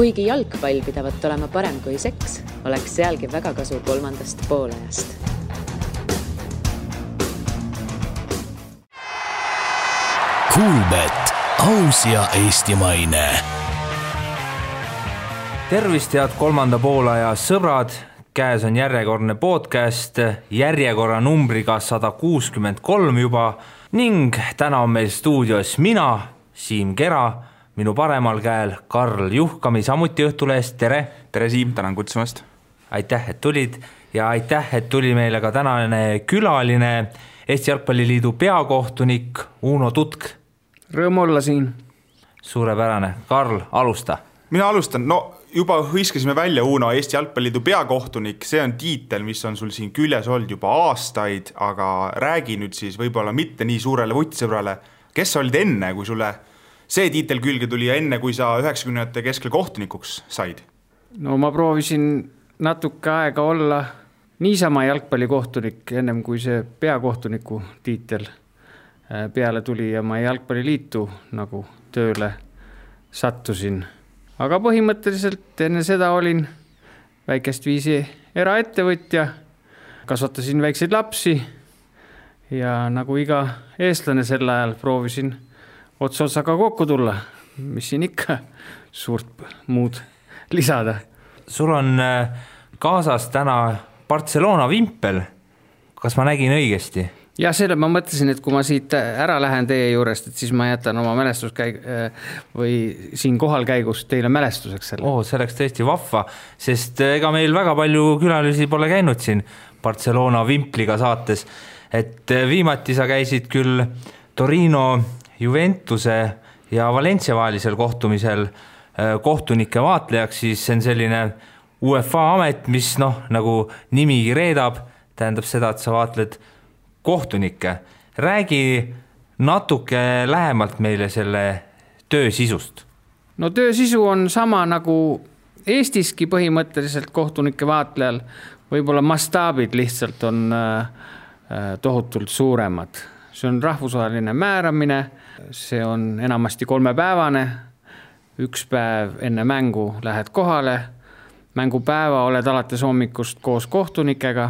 Kuigi jalgpall pidavat olema parem kui seks, oleks sealgi väga kasu kolmandast poolajast. Kuulbet, aus ja eestimaine. Tervist, head kolmanda poolaja sõbrad. Käes on järjekordne podcast, järjekorra numbriga 163 juba ning täna on meil stuudios mina, Siim Kera, minu paremal käel Karl Juhkami, samuti Õhtulehest. Tere! Tere Siim, tänan kutsumast. Aitäh, et tulid ja aitäh, et tuli meile ka tänane külaline, Eesti Jalgpalliliidu peakohtunik Uno Tutk. Rõõm olla siin. Suurepärane. Karl, alusta. Mina alustan. Juba hõiskasime välja Uno, Eesti Jalgpalliliidu peakohtunik. See on tiitel, mis on sul siin küljes olnud juba aastaid, aga räägi nüüd siis võib-olla mitte nii suurele vutsõbrale. Kes olid enne, kui sulle see tiitel külge tuli ja enne, kui sa 90-ndate keskel kohtunikuks said? Ma proovisin natuke aega olla niisama jalgpallikohtunik, ennem kui see peakohtuniku tiitel peale tuli ja ma jalgpalliliitu nagu tööle sattusin. Aga põhimõtteliselt enne seda olin väikest viisi eraettevõtja, kasvatasin väikseid lapsi ja nagu iga eestlane sel ajal proovisin otsa-otsaga kokku tulla, mis siin ikka suurt muud lisada. Sul on kaasas täna Barcelona vimpel, kas ma nägin õigesti? Ja selle ma mõtlesin, et kui ma siit ära lähen teie juurest, et siis ma jätan oma või siin kohal käigus teile mälestuseks selle. See oleks tõesti vahva, sest ega meil väga palju külalisi pole käinud siin Barcelona vimpliga saates. Et viimati sa käisid küll Torino, Juventuse ja Valencia vahelisel kohtumisel kohtunike vaatlejaks, siis see on selline UEFA amet, mis nagu nimigi reedab, tähendab seda, et sa vaatled kohtunikke. Räägi natuke lähemalt meile selle töö sisust. Töö sisu on sama nagu Eestiski põhimõtteliselt kohtunike vaatlejal. Võib-olla mastaabid lihtsalt on tohutult suuremad. See on rahvusvaheline määramine, see on enamasti 3-päevane. 1 päev enne mängu lähed kohale, mängupäeva oled alates hommikust koos kohtunikega,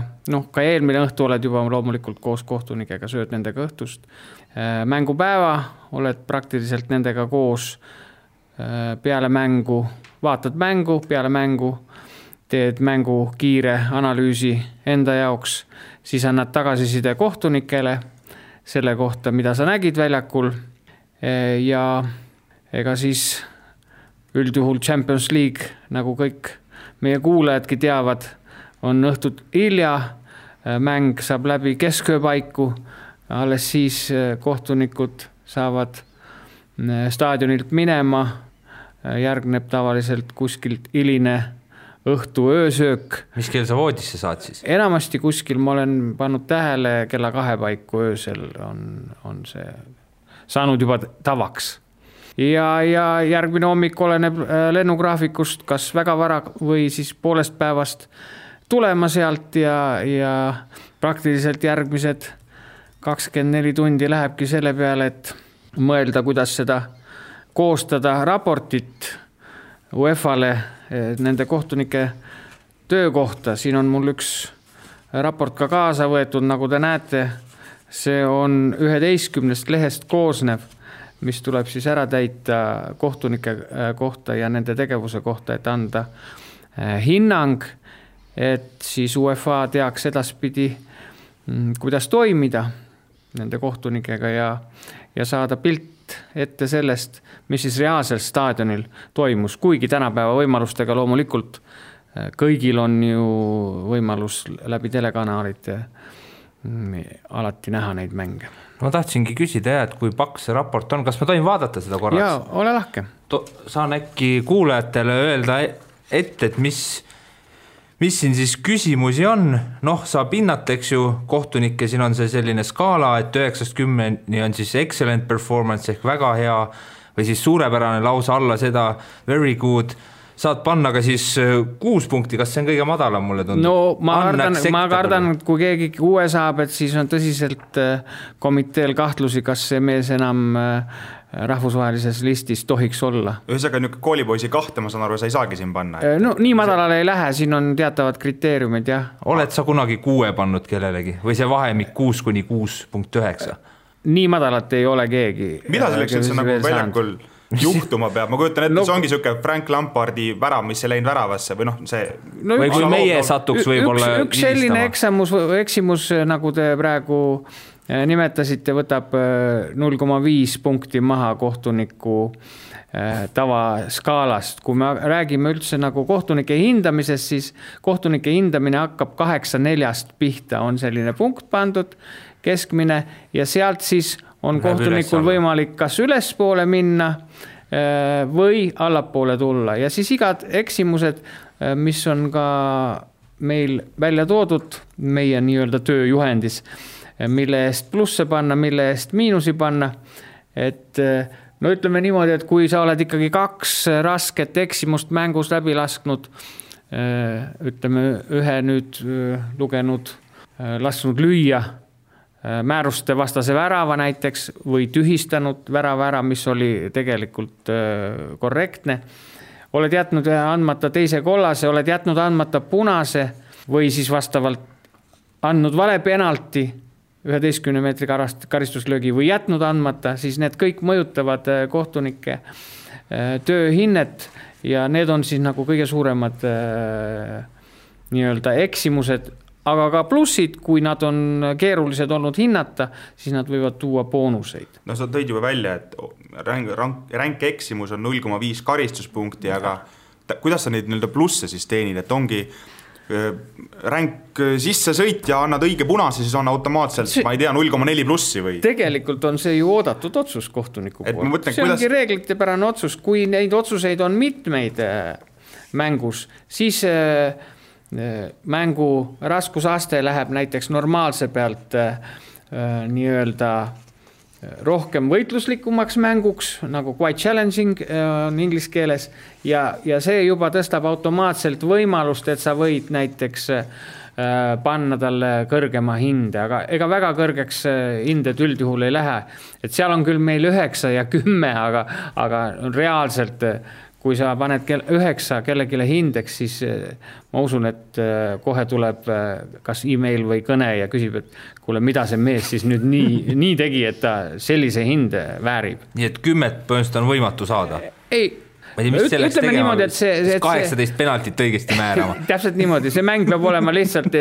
ka eelmine õhtu oled juba loomulikult koos kohtunikega, sööd nendega õhtust. Mängupäeva oled praktiliselt nendega koos peale mängu, vaatad mängu, peale mängu, teed mängu kiire analüüsi enda jaoks, siis annad tagasiside kohtunikele selle kohta, mida sa nägid väljakul ja ega siis üldjuhul Champions League, nagu kõik meie kuulajadki teavad, on õhtut hilja, mäng saab läbi keskööpaiku, alles siis kohtunikud saavad staadionilt minema, järgneb tavaliselt kuskilt hiline õhtu öösöök. Mis kell sa voodisse saad siis? Enamasti kuskil ma olen pannud tähele kella 2 paiku öösel on see saanud juba tavaks. Ja järgmine hommik oleneb lennugraafikust, kas väga vara või siis poolest päevast tulema sealt ja praktiliselt järgmised 24 tundi lähebki selle peale, et mõelda, kuidas seda koostada raportit UEFA-le nende kohtunike töö kohta. Siin on mul üks raport ka kaasa võetud, nagu te näete, see on 11 lehest koosnev, mis tuleb siis ära täita kohtunike kohta ja nende tegevuse kohta, et anda hinnang, et siis UEFA teaks edaspidi, kuidas toimida nende kohtunikega ja saada pilt ette sellest, mis siis reaalselt staadionil toimus, kuigi tänapäeva võimalustega loomulikult kõigil on ju võimalus läbi telekanaalite alati näha neid mänge. Ma tahtsingi küsida, et kui paks see raport on, kas ma tohin vaadata seda korraks? Jaa, ole lahke. Saan äkki kuulajatele öelda ette, et mis siin siis küsimusi on. Saab hinnata, eks ju, kohtunikke, siin on see selline skaala, et 9-10 on siis excellent performance ehk väga hea või siis suurepärane lausa alla seda very good. Saad panna ka siis 6 punkti, kas see on kõige madalam mulle tundub? Ma kardan, et kui keegi 6 saab, et siis on tõsiselt komiteel kahtlusi, kas see mees enam rahvusvahelises listis tohiks olla. Ühesõnaga niisugune koolipoisi kahte, ma saan aru, sa ei saagi siin panna. No nii madalale ei lähe, siin on teatavad kriteeriumid, jah. Oled sa kunagi 6 pannud kellelegi või see vahemik 6-6.9? Nii madalat ei ole keegi. Mida selleks üldse nagu väljakul juhtuma peab? Ma kujutan ette, see ongi niisugune Frank Lampardi värav, mis ei läinud väravasse või see... või kui meie satuks võib-olla üks selline eksimus, nagu te praegu nimetasite, võtab 0,5 punkti maha kohtuniku tavaskaalast. Kui me räägime üldse nagu kohtunike hindamisest, siis kohtunike hindamine hakkab 8-4 pihta, on selline punkt pandud, keskmine, ja sealt siis on kohtunikul võimalik kas ülespoole minna või allapoole tulla. Ja siis igad eksimused, mis on ka meil välja toodud meie nii-öelda tööjuhendis, mille eest plusse panna, mille eest miinusi panna. Et no ütleme niimoodi, et kui sa oled ikkagi 2 rasket eksimust mängus läbi lasknud, ütleme ühe nüüd lugenud, lasknud lüüa määruste vastase värava näiteks või tühistanud värava, mis oli tegelikult korrektne. Oled jätnud andmata teise kollase, oled jätnud andmata punase või siis vastavalt andnud vale penalti 11 meetri karistuslöögi või jätnud andmata, siis need kõik mõjutavad kohtunike tööhinnet ja need on siis nagu kõige suuremad nii-öelda eksimused, aga ka plussid, kui nad on keerulised olnud hinnata, siis nad võivad tuua boonuseid. No sa tõid juba välja, et ränk eksimus on 0,5 karistuspunkti, aga kuidas sa neid nii-öelda plusse siis teenid, et ongi ränk sisse sõit ja annad õige punase, siis on automaatselt, ma ei tea, 0,4 plussi või? Tegelikult on see ju oodatud otsus kohtuniku poolt. See kuidas... ongi reeglitepärane otsus. Kui neid otsuseid on mitmeid mängus, siis mängu raskusaste läheb näiteks normaalse pealt nii-öelda rohkem võitluslikumaks mänguks, nagu quite challenging on inglise keeles, ja see juba tõstab automaatselt võimalust, et sa võid näiteks panna talle kõrgema hinde, aga ega väga kõrgeks hinded üldjuhul ei lähe. Et seal on küll meil 9 ja 10, aga reaalselt kui sa paned 9 kellegile hindeks, siis ma usun, et kohe tuleb kas email või kõne ja küsib, et kuule, mida see mees siis nüüd nii tegi, et ta sellise hinde väärib. Nii et 10 põhimõtteliselt on võimatu saada? Ei, ütleme niimoodi, et see 18 penaltit õigesti määrama. Täpselt niimoodi, see mäng peab olema lihtsalt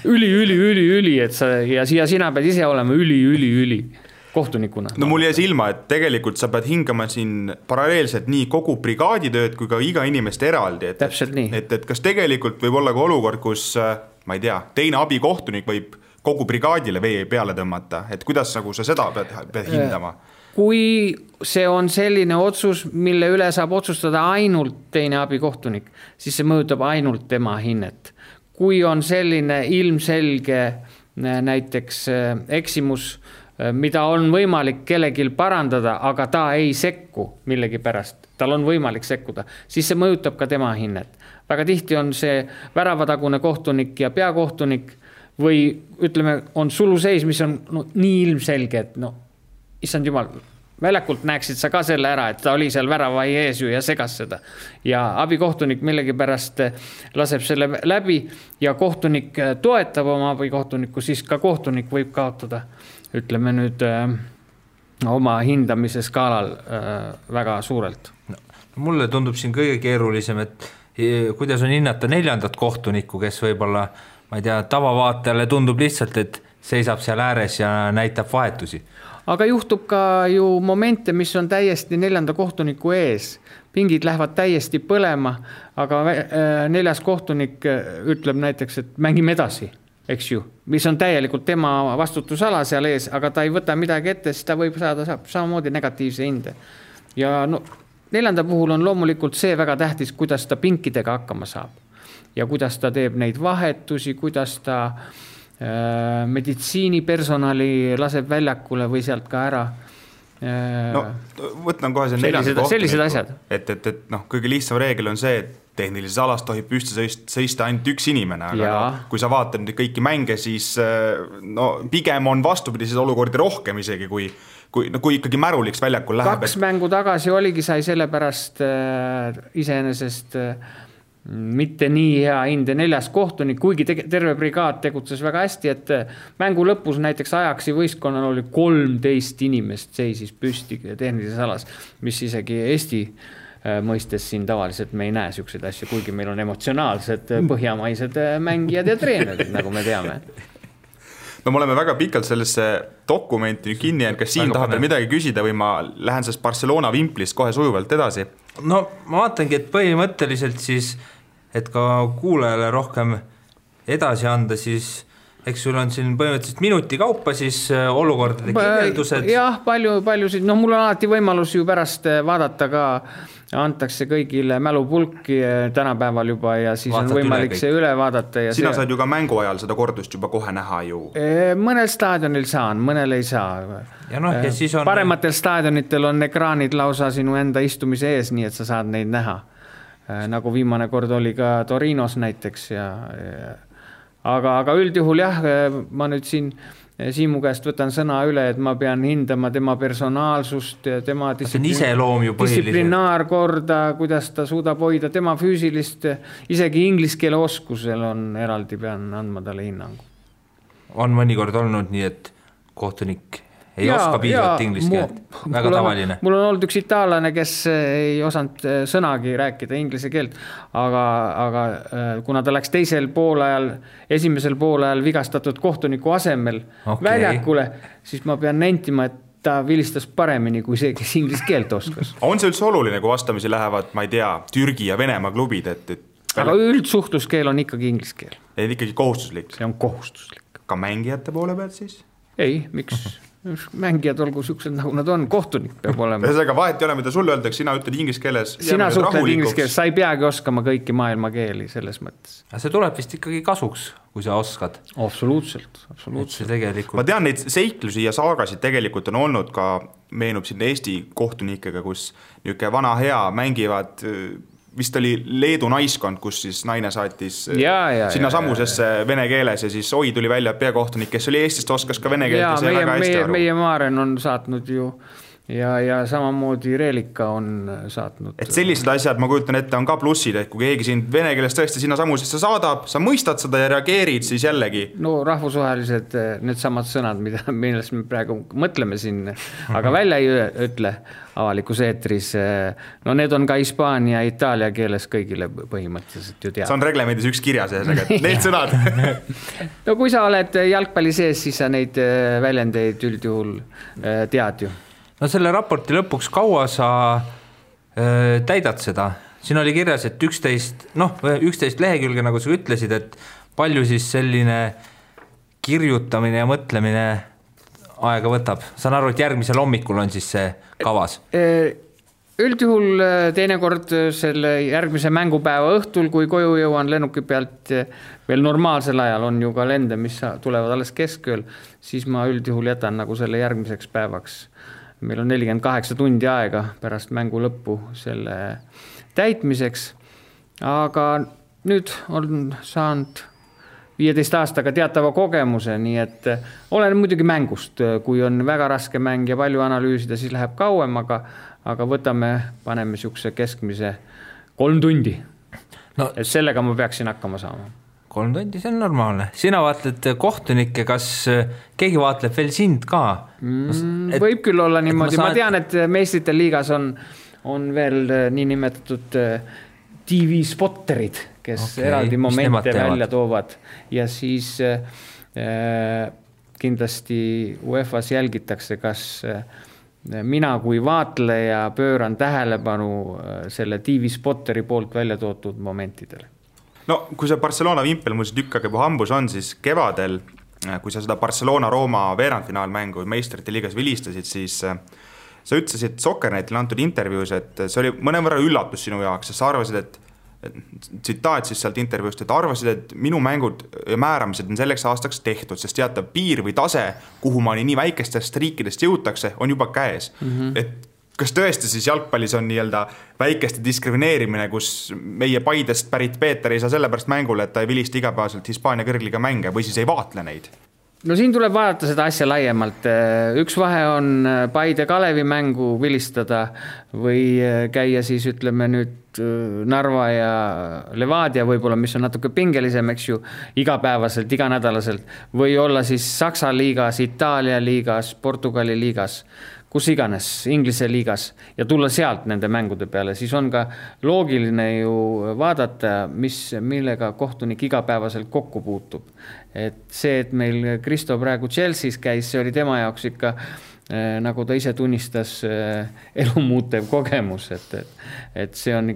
üli, et ja sina pead ise olema üli kohtunikuna. No mul jäi silma, et tegelikult sa pead hingama siin paralleelselt nii kogu brigaaditööd kui ka iga inimest eraldi. Täpselt nii. Et kas tegelikult võib olla ka olukord, kus, ma ei tea, teine abikohtunik võib kogu brigaadile vee peale tõmmata, et kuidas nagu sa seda pead hindama? Kui see on selline otsus, mille üle saab otsustada ainult teine abikohtunik, siis see mõjutab ainult tema hinnet. Kui on selline ilmselge näiteks eksimus, mida on võimalik kellegil parandada, aga ta ei sekku millegi pärast, tal on võimalik sekkuda, siis see mõjutab ka tema hinnet. Väga tihti on see väravatagune kohtunik ja peakohtunik või ütleme, on suluseis, mis on nii ilmselge, et issand jumal, väljakult näeksid sa ka selle ära, et ta oli seal väravai ees ja segas seda. Ja abikohtunik millegi pärast laseb selle läbi ja kohtunik toetab oma abikohtunikku, siis ka kohtunik võib kaotada, ütleme nüüd oma hindamise skaalal väga suurelt. Mulle tundub siin kõige keerulisem, et kuidas on hinnata 4. kohtunikku, kes võib-olla, ma ei tea, tavavaatajale tundub lihtsalt, et seisab seal ääres ja näitab vahetusi. Aga juhtub ka ju momente, mis on täiesti 4. kohtuniku ees. Pingid lähevad täiesti põlema, aga 4. kohtunik ütleb näiteks, et mängime edasi, eks ju, mis on täielikult tema vastutusala seal ees, aga ta ei võta midagi ette, siis ta võib saada samamoodi negatiivse hinde. Ja 4. puhul on loomulikult see väga tähtis, kuidas ta pinkidega hakkama saab ja kuidas ta teeb neid vahetusi, kuidas ta meditsiinipersonali laseb väljakule või sealt ka ära. Võtan kohe see 4. sellised asjad. Et kõige lihtsam reegel on see, et tehnilises alas tohib püsti sõista ainult üks inimene, aga kui sa vaatad nüüd kõiki mänge, siis pigem on vastupidises olukordi rohkem isegi, kui kui ikkagi märuliks väljakul läheb. 2 mängu tagasi oligi, sai sellepärast iseenesest mitte nii hea hinde 4. kohtunik, kuigi terve brigaad tegutses väga hästi, et mängu lõpus näiteks Ajaxi võistkonnal oli 13 inimest seisis püsti tehnilises alas, mis isegi Eesti mõistes siin tavaliselt me ei näe siukseid asju, kuigi meil on emotsionaalsed põhjamaised mängijad ja treenerid, nagu me teame. No me oleme väga pikalt sellesse dokumenti kinni jäänud, kas siin tahab veel midagi küsida või ma lähen sellest Barcelona vimplist kohe sujuvalt edasi? No ma vaatangi, et põhimõtteliselt siis, et ka kuulajale rohkem edasi anda, siis eks sul on siin põhimõtteliselt minuti kaupa siis olukordade kirjeldused. Jah, paljusid, mul on alati võimalus ju pärast vaadata ka, antakse kõigile mälupulki tänapäeval juba ja siis vaatad on võimalik see üle vaadata. Ja sina saad ju ka mängu ajal seda kordust juba kohe näha ju. Mõnel staadionil saan, mõnel ei saa. Ja ja siis on... Parematel staadionitel on ekraanid lausa sinu enda istumise ees, nii et sa saad neid näha. Nagu viimane kord oli ka Torinos näiteks. Aga üldjuhul jah, ma nüüd siin Siimu käest võtan sõna üle, et ma pean hindama tema personaalsust, tema distsiplinaarkorda, kuidas ta suudab hoida, tema füüsilist, isegi ingliskeele oskusel on eraldi, pean andma talle hinnangu. On mõnikord olnud nii, et kohtunik ei oska piisavalt ingliskeelt, väga tavaline. Mul on olnud üks itaallane, kes ei osanud sõnagi rääkida inglise keelt, aga kuna ta läks esimesel poolajal vigastatud kohtuniku asemel väljakule, siis ma pean nentima, et ta vilistas paremini kui see, kes inglise keelt oskas. On see üldse oluline, kui vastamisi lähevad, ma ei tea, Türgi ja Venemaa klubid? Aga üldsuhtluskeel on ikkagi inglise keel. Et ikkagi kohustuslik? See on kohustuslik. Ka mängijate poole pealt siis? Ei, miks? Mängijad olgu siuksed, nagu nad on, kohtunik peab olema. Ühesõnaga vahet ei ole, mida sulle öeldakse, sina ütled inglise keeles. Sina suhtled inglise keeles, sa ei peagi oskama kõiki maailma keeli selles mõttes. See tuleb vist ikkagi kasuks, kui sa oskad. Absoluutselt. Ma tean, neid seiklusi ja saagasid tegelikult on olnud ka, meenub siin Eesti kohtunikega, kus niisugune vana hea mängivad... Vist oli Leedu naiskond, kus siis naine saatis sinna samusesse vene keeles ja siis tuli välja peakohtunik, kes oli Eestist, oskas ka vene keelt ja see väga hästi aru. Meie Maaren on saatnud ju ja samamoodi Reelika on saatnud. Et sellised asjad, ma kujutan ette, on ka plussid, et kui keegi sind vene keeles tõesti sinna samusesse saadab, sa mõistad seda ja reageerid siis jällegi. No rahvusvahelised need samad sõnad, millest me praegu mõtleme siin, aga välja ei ütle avalikus eetris. No need on ka hispaania ja itaalia keeles kõigile põhimõtteliselt ju teada. See on reglemendis üks kirjas, need sõnad. No kui sa oled jalgpalli sees, siis sa neid väljendeid üldjuhul tead ju. No selle raporti lõpuks kaua sa täidad seda? Siin oli kirjas, et 11 lehekülge, nagu sa ütlesid, et palju siis selline kirjutamine ja mõtlemine aega võtab. Saan aru, et järgmisel hommikul on siis see kavas? Üldjuhul teinekord selle järgmise mängupäeva õhtul, kui koju jõuan lennuki pealt veel normaalsel ajal on ju ka lende, mis tulevad alles keskööl, siis ma üldjuhul jätan nagu selle järgmiseks päevaks. Meil on 48 tundi aega pärast mängu lõppu selle täitmiseks, aga nüüd on saanud 15 aastaga teatava kogemuse, nii et olen muidugi mängust, kui on väga raske mäng ja palju analüüsida, siis läheb kauem, aga paneme siukse keskmise 3 tundi. No, et sellega ma peaksin hakkama saama. 3 tundi, see on normaalne. Sina vaatled kohtunikke, kas keegi vaatleb veel sind ka? Võib küll olla niimoodi. Ma tean, et meistrite liigas on veel nii nimetatud TV-spotterid, kes eraldi momente välja toovad. Ja siis kindlasti UEFA-s jälgitakse, kas mina kui vaatleja pööran tähelepanu selle TV-spotteri poolt välja tootud momentidele. No, kui see Barcelona vimpel mul see tükk juba hambus on, siis kevadel, kui sa seda Barcelona-Rooma veerandfinaalmängu meistrite liigas vilistasid, siis sa ütlesid Sokkernetile antud intervjuus, et see oli mõnevõrra üllatus sinu jaoks, sest sa arvasid, et tsitaat siis sealt intervjuust, et arvasid, et minu mängud ja määramised on selleks aastaks tehtud, sest teatav piir või tase, kuhu ma nii väikestest riikidest jõutakse, on juba käes. Et kas tõesti siis jalgpallis on nii-öelda väikeste diskrimineerimine, kus meie Paidest pärit Peeter ei saa sellepärast mängule, et ta ei vilista igapäevaselt Hispaania kõrgliga mänge või siis ei vaatle neid? No siin tuleb vaadata seda asja laiemalt. Üks vahe on Paide Kalevi mängu vilistada või käia siis ütleme nüüd Narva ja Levadia võib-olla, mis on natuke pingelisem, eks ju, igapäevaselt, iganädalaselt, või olla siis Saksa liigas, Itaalia liigas, Portugali liigas, kus iganes, Inglise liigas ja tulla sealt nende mängude peale, siis on ka loogiline ju vaadata, millega kohtunik igapäevaselt kokku puutub. Et see, et meil Kristo praegu Chelsea's käis, see oli tema jaoks ikka, nagu ta ise tunnistas, elumuutev kogemus, et see on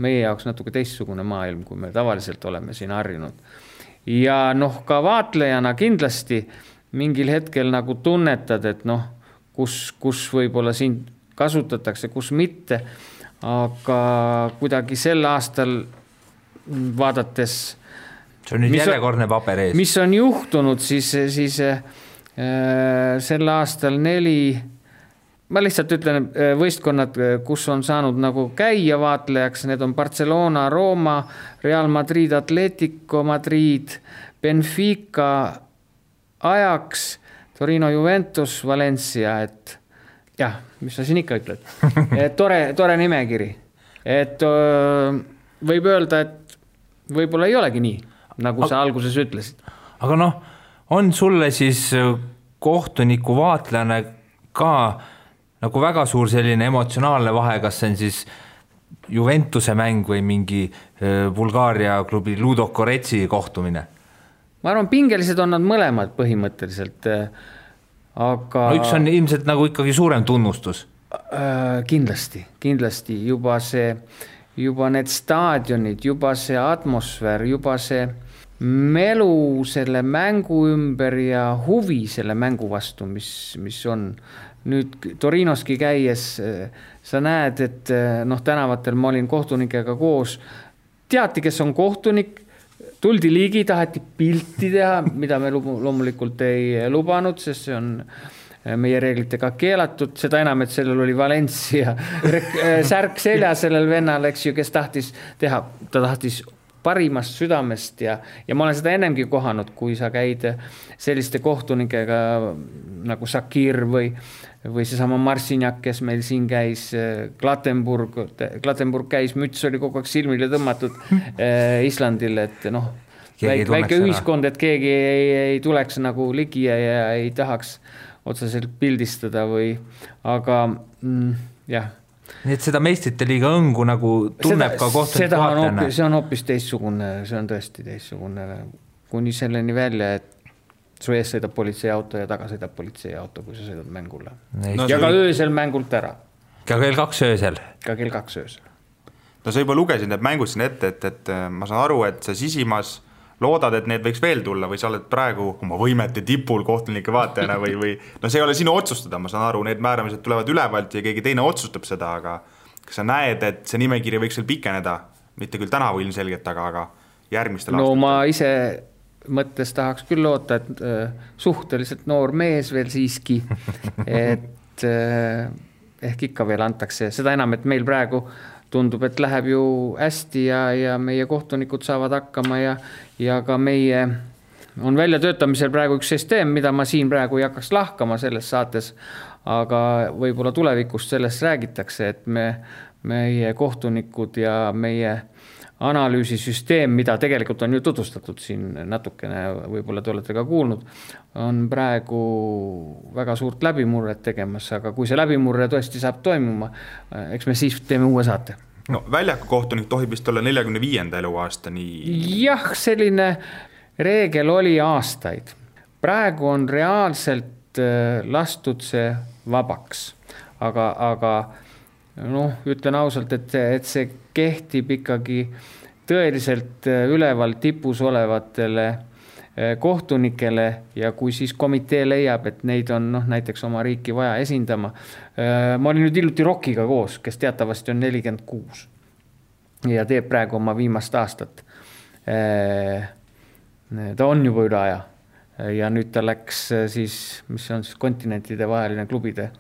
meie jaoks natuke teistsugune maailm, kui me tavaliselt oleme siin harjunud. Ja ka vaatlejana kindlasti mingil hetkel nagu tunnetad, et kus võib-olla siin kasutatakse, kus mitte, aga kuidagi sel aastal vaadates see on nüüd järjekordne paber ees. Mis on juhtunud, siis sel aastal 4, ma lihtsalt ütlen võistkonnad, kus on saanud nagu käia vaatlejaks, need on Barcelona, Roma, Real Madrid, Atletico Madrid, Benfica, Ajax, Torino, Juventus, Valencia, et jah, mis sa siin ikka ütled. Tore nimekiri. Et võib öelda, et võib-olla ei olegi nii, nagu sa alguses ütlesid. Aga on sulle siis kohtuniku vaatlejana ka nagu väga suur selline emotsionaalne vahe, kas see on siis Juventuse mäng või mingi Bulgaaria klubi Ludo Goretsi kohtumine? Ma arvan, pingelised on nad mõlemad põhimõtteliselt, aga... üks on ilmselt nagu ikkagi suurem tunnustus. Kindlasti. Juba need staadionid, juba see atmosfäär, juba see melu selle mängu ümber ja huvi selle mängu vastu, mis on. Nüüd Torinoski käies sa näed, et tänavatel ma olin kohtunikega koos, teati, kes on kohtunik, tuldi ligi, taheti pilti teha, mida me loomulikult ei lubanud, sest see on meie reeglitega keelatud, seda enam, et sellel oli Valencia särk selja sellel vennal, eks ju, kes tahtis teha, ta tahtis parimast südamest ja ma olen seda ennemgi kohanud, kui sa käid selliste kohtunikega nagu Sakir või seesama Marcinjak, kes meil siin käis, Klattenburg käis, müts oli kogu aeg silmile tõmmatud Islandil, et väike ühiskond, et keegi ei tuleks nagu ligi ja ei tahaks otseselt pildistada aga jah. Nii et seda meistrite liiga õngu nagu tunneb ka kohtunik vaatlejana. See on hoopis teistsugune, see on tõesti teistsugune, kuni selleni välja, et su ees sõidab politseiauto ja taga sõidab politseiauto, kui sa sõidad mängule. Ja ka öösel mängult ära. Ka kell 2 öösel. Ka kell 2 öösel. Sa juba lugesin need mängud siin ette, et ma saan aru, et sa sisimas loodad, et need võiks veel tulla või sa oled praegu oma võimete tipul kohtunike vaatajana või see ei ole sinu otsustada, ma saan aru, need määramised tulevad ülevalt ja keegi teine otsustab seda, aga kas sa näed, et see nimekiri võiks veel pikeneda, mitte küll tänavu ilmselgelt, aga järgmistel aastatel? Ma ise mõttes tahaks küll loota, et suhteliselt noor mees veel siiski, et ehk ikka veel antakse, seda enam, et meil praegu tundub, et läheb ju hästi ja meie kohtunikud saavad hakkama ja ka meie on välja töötamisel praegu üks süsteem, mida ma siin praegu ei hakkaks lahkama selles saates, aga võib-olla tulevikust sellest räägitakse, et meie kohtunikud ja meie analüüsisüsteem, mida tegelikult on ju tutvustatud siin natukene, võib-olla te olete ka kuulnud, on praegu väga suurt läbimurret tegemas, aga kui see läbimurre tõesti saab toimuma, eks me siis teeme uue saate. Väljaku kohtunik tohib vist olla 45. eluaastani. Jah, selline reegel oli aastaid. Praegu on reaalselt lastud see vabaks, aga ütlen ausalt, et see kehtib ikkagi tõeliselt üleval tipus olevatele kohtunikele ja kui siis komitee leiab, et neid on näiteks oma riiki vaja esindama. Ma olin nüüd hiljuti Rockiga koos, kes teatavasti on 46 ja teeb praegu oma viimast aastat. Ta on juba üle aja ja nüüd ta läks siis, mis on siis kontinentide vaheline klubide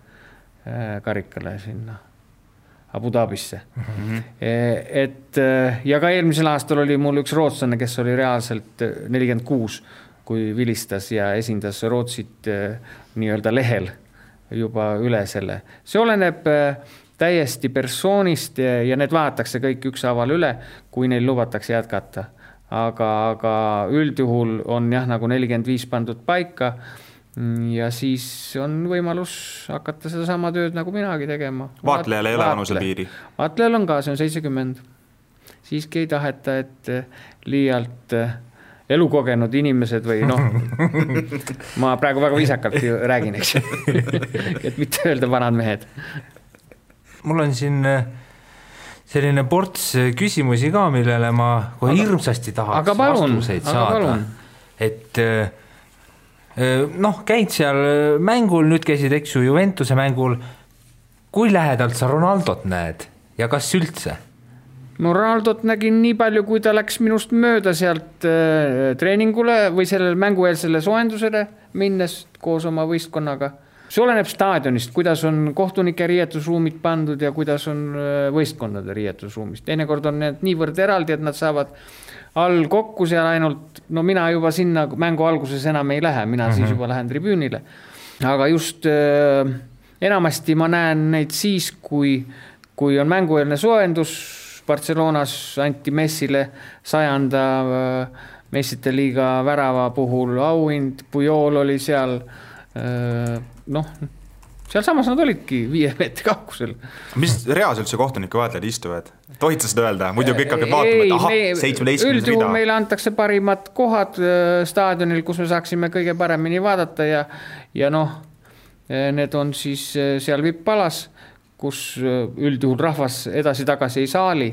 karikale sinna Abu Dhabisse. Ja ka eelmisel aastal oli mul üks rootslane, kes oli reaalselt 46 kui vilistas ja esindas Rootsit nii-öelda lehel juba üle selle. See oleneb täiesti persoonist ja need vaadatakse kõik ükshaaval üle, kui neil lubatakse jätkata. Aga üldjuhul on jah nagu 45 pandud paika ja siis on võimalus hakata seda sama tööd nagu minagi tegema. Vaatlejal ei ole vanuse piiri? Vaatlejal on ka, see on 70. Siiski ei taheta, et liialt elukogenud inimesed või ma praegu väga viisakalt räägin, eks. Et mitte öelda vanad mehed. Mul on siin selline ports küsimusi ka, millele ma hirmsasti tahaks vastuseid saada. Et käid seal mängul, nüüd käisid, eks ju, Juventuse mängul. Kui lähedalt sa Ronaldot näed ja kas üldse? Ma Ronaldot nägin nii palju, kui ta läks minust mööda sealt treeningule või sellele mängueelsele soojendusele minnes koos oma võistkonnaga. See oleneb staadionist, kuidas on kohtunike riietusruumid pandud ja kuidas on võistkondade riietusruumist. Teinekord on need niivõrd eraldi, et nad saavad all kokku seal ainult, mina juba sinna mängu alguses enam ei lähe, mina siis juba lähen tribüünile. Aga just enamasti ma näen neid siis, kui on mängueelne soojendus. Barcelonas anti Messile 100. Messite liiga värava puhul auhind, Pujol oli seal, seal samas nad olidki 5 meetri kaukusel. Mis reas üldse kohtunike vaatlejad istuvad? Tohid sa seda öelda? Muidu kõik hakkad vaatama, et 17 rida. Üldjuhul meile antakse parimad kohad staadionil, kus me saaksime kõige paremini vaadata ja need on siis seal vippalas, kus üldjuhul rahvas edasi-tagasi ei saali,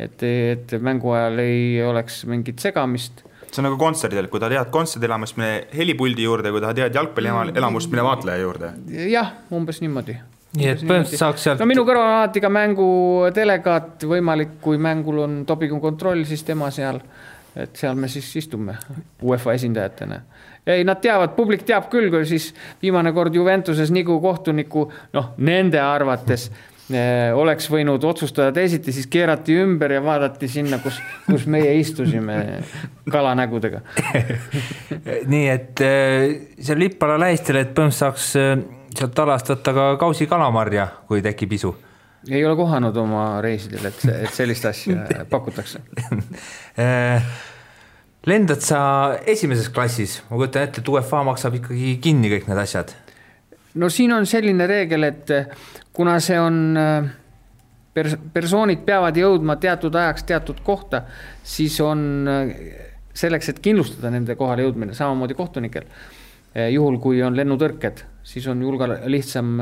et mängu ajal ei oleks mingit segamist. See on nagu kontserdil, kui ta tead kontserdilamust, mine helipuldi juurde, kui ta tead jalgpallielamust, mine vaatleja juurde. Jah, umbes niimoodi. Nii et põhimõtteliselt saaks sealt... minu kõrval on alati ka mängu delegaat võimalik, kui mängul on dopingu kontroll, siis tema seal, et seal me siis istume UEFA esindajatena. Ei, nad teavad, publik teab küll, kui siis viimane kord Juventuses nagu kohtuniku, nende arvates oleks võinud otsustada teisiti, siis keerati ümber ja vaadati sinna, kus meie istusime kalanägudega. Nii, et seal Lippala lähistel, et põhimõtteliselt saaks sealt alast võtta ka kausi kalamarja, kui tekib isu. Ei ole kohanud oma reisidel, et sellist asja pakutakse. Lendad sa esimeses klassis? Ma kujutan ette, et UEFA maksab ikkagi kinni kõik need asjad. No siin on selline reegel, et kuna see on persoonid peavad jõudma teatud ajaks teatud kohta, siis on selleks, et kindlustada nende kohale jõudmine, samamoodi kohtunikel. Juhul, kui on lennutõrked, siis on lihtsam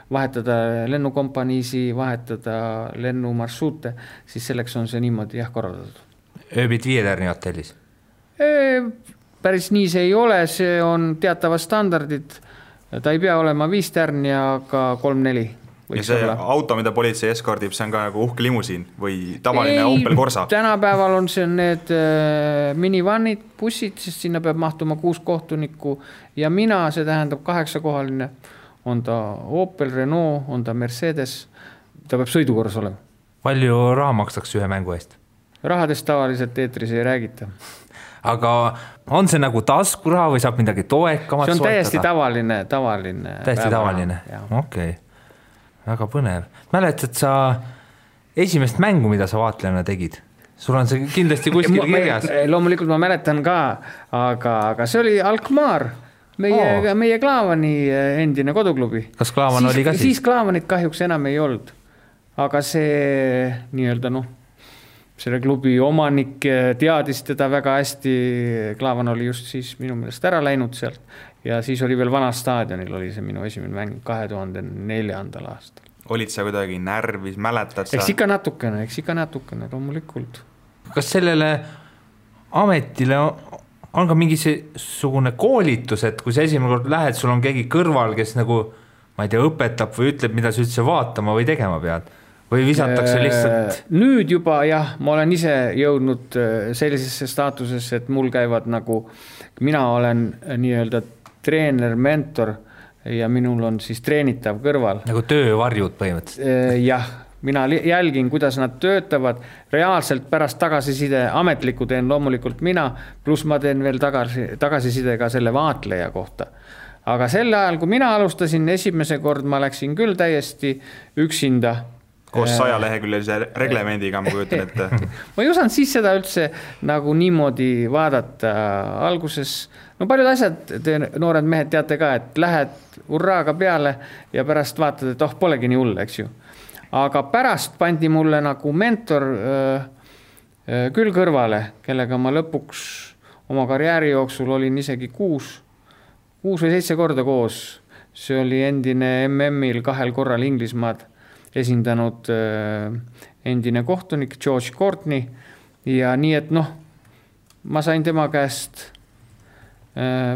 vahetada lennukompaniisi, vahetada lennumarsruute, siis selleks on see niimoodi korraldatud. Ööbid 5 tärni hotellis? Päris nii see ei ole, see on teatavad standardid. Ta ei pea olema 5 tärni, aga 3-4. Ja see auto, mida politsei eskordib, see on ka nagu uhke limusiin või tavaline Opel Corsa? Tänapäeval on see need minivannid, bussid, sest sinna peab mahtuma 6 kohtunikku ja mina, see tähendab 8-kohaline, on ta Opel, Renault, on ta Mercedes, ta peab sõidukorras olema. Palju raha makstakse ühe mängu eest? Rahadest tavaliselt eetris ei räägita. Aga on see nagu taskuraha või saab midagi toekamat soetada? See on täiesti tavaline. Täiesti tavaline, okei. Väga põnev. Mäletad sa esimest mängu, mida sa vaatlejana tegid? Sul on see kindlasti kuskil kirjas. Loomulikult ma mäletan ka, aga see oli Alkmaar, meie Klaavani endine koduklubi. Kas Klaavan oli ka siis? Siis Klaavanit kahjuks enam ei olnud. Aga see nii-öelda selle klubi omanik teadis teda väga hästi. Klaavan oli just siis minu meelest ära läinud sealt ja siis oli veel Vana staadionil oli see minu esimene mäng 2004. aastal. Olid sa kuidagi närvis, mäletad sa? Eks ikka natukene, loomulikult. Kas sellele ametile on ka mingisugune koolitus, et kui sa esimene kord lähed, sul on keegi kõrval, kes nagu, ma ei tea, õpetab või ütleb, mida sa üldse vaatama või tegema pead? Või visatakse lihtsalt? Nüüd juba ma olen ise jõudnud sellisesse staatusesse, et mul käivad nagu, mina olen nii-öelda treener, mentor ja minul on siis treenitav kõrval. Nagu töövarjud põhimõtteliselt? Jah, mina jälgin, kuidas nad töötavad, reaalselt pärast tagasiside, ametlikku teen loomulikult mina, pluss ma teen veel tagasiside ka selle vaatleja kohta. Aga sel ajal, kui mina alustasin, esimese kord ma läksin küll täiesti üksinda. Koos 100 leheküljelise reglemendiga, ma kujutan ette. Ma ei osanud siis seda üldse nagu niimoodi vaadata alguses. No paljud asjad, te noored mehed teate ka, et lähed urraaga peale ja pärast vaatad, et polegi nii hull, eks ju. Aga pärast pandi mulle nagu mentor küll kõrvale, kellega ma lõpuks oma karjääri jooksul olin isegi 6 või 7 korda koos. See oli endine MM-il 2 korral Inglismaad esindanud endine kohtunik George Courtney ja nii, et ma sain tema käest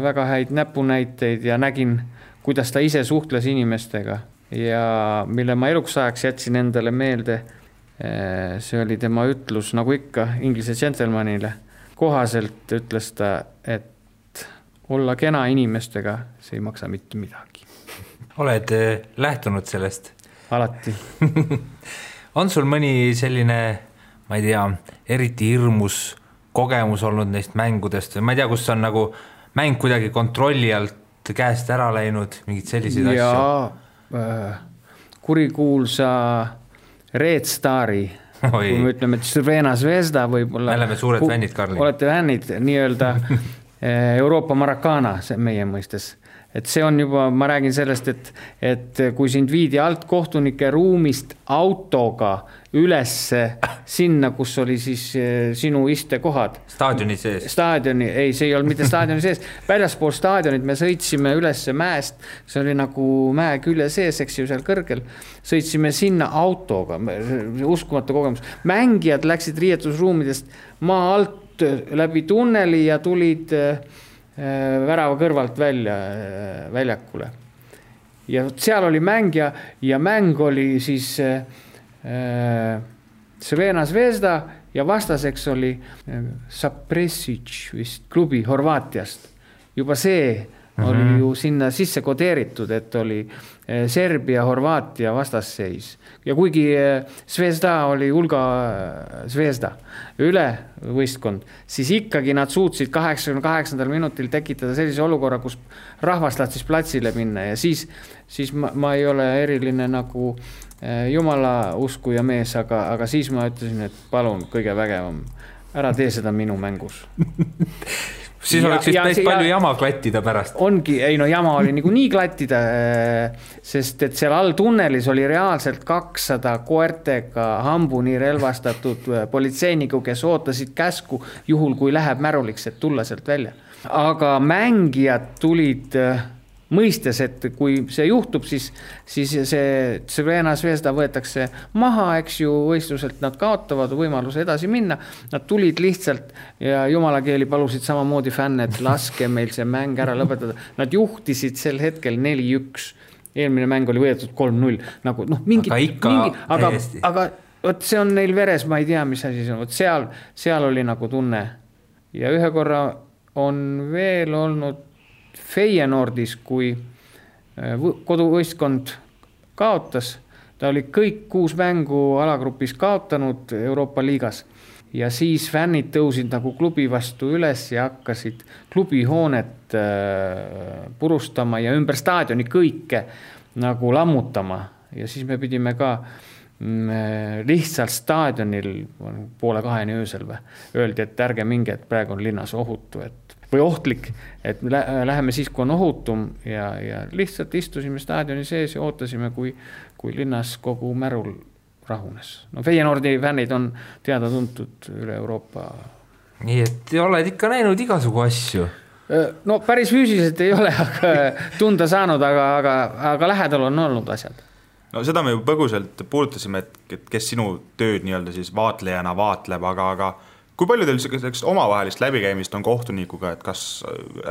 väga häid näpunäiteid ja nägin, kuidas ta ise suhtles inimestega ja mille ma eluks ajaks jätsin endale meelde, see oli tema ütlus, nagu ikka inglise džentelmanile. Kohaselt ütles ta, et olla kena inimestega, see ei maksa mitte midagi. Oled lähtunud sellest? Alati. On sul mõni selline, ma ei tea, eriti hirmus kogemus olnud neist mängudest või ma ei tea, kus on nagu mäng kuidagi kontrolli alt käest ära läinud, mingid sellised asju? Kurikuulsa Red Stari, kui me ütleme, et Crvena Zvezda võib-olla. Me oleme suured fännid, Karli. Olete fännid, nii-öelda Euroopa Maracana meie mõistes. Et see on juba, ma räägin sellest, et kui sind viidi alt kohtunike ruumist autoga ülesse sinna, kus oli siis sinu istekohad. Staadioni sees. Ei, see ei olnud mitte staadioni sees. Väljaspool staadionit me sõitsime ülesse mäest, see oli nagu mäe külje sees, eks ju, seal kõrgel. Sõitsime sinna autoga, uskumatu kogemus. Mängijad läksid riietusruumidest maa alt läbi tunneli ja tulid värava kõrvalt väljakule. Ja seal oli mängija ja mäng oli siis Crvena Zvezda ja vastaseks oli Zapresic vist klubi Horvaatiast. Juba see oli ju sinna sisse kodeeritud, et oli Serbia, Horvaatia vastasseis. Ja kuigi Zvezda oli hulga Zvezda üle võistkond, siis ikkagi nad suutsid 88. minutil tekitada sellise olukorra, kus rahvas tahtsis platsile minna ja siis ma ei ole eriline nagu jumala uskuja mees, aga siis ma ütlesin, et palun kõige vägevam, ära tee seda minu mängus. Siis oleks vist päris palju jama klattida pärast. Ongi, jama oli nagu nii klattida, sest et seal all tunnelis oli reaalselt 200 koertega hambuni relvastatud politseiniku, kes ootasid käsku juhul, kui läheb märuliks, et tulla sealt välja. Aga mängijad tulid mõistes, et kui see juhtub, siis see Crvena Zvezda võetakse maha, eks ju, võistluselt nad kaotavad võimaluse edasi minna. Nad tulid lihtsalt ja jumala keeli palusid samamoodi fänne, et laske meil see mäng ära lõpetada. Nad juhtisid sel hetkel 4-1. Eelmine mäng oli võetud 3-0. Nagu, aga võt, see on neil veres, ma ei tea, mis asi see on. Võt, seal oli nagu tunne. Ja ühe korra on veel olnud Feyenoordis, kui koduvõistkond kaotas, ta oli kõik 6 mängu alagrupis kaotanud Euroopa liigas ja siis fännid tõusid nagu klubi vastu üles ja hakkasid klubihoonet purustama ja ümber staadioni kõike nagu lammutama ja siis me pidime ka lihtsalt staadionil 1:30 öösel öeldi, et ärge minge, et praegu on linnas ohutu, või ohtlik, et läheme siis, kui on ohutum ja lihtsalt istusime staadioni sees ja ootasime, kui linnas kogu märul rahunes. No Feyenoordi fännid on teada tuntud üle Euroopa. Nii, et oled ikka näinud igasugu asju? No päris füüsiliselt ei ole tunda saanud, aga lähedal on olnud asjad. No seda me ju põguselt puudutasime, et kes sinu tööd nii-öelda siis vaatlejana vaatleb, aga kui palju teil omavahelist läbikäimist on kohtunikuga, et kas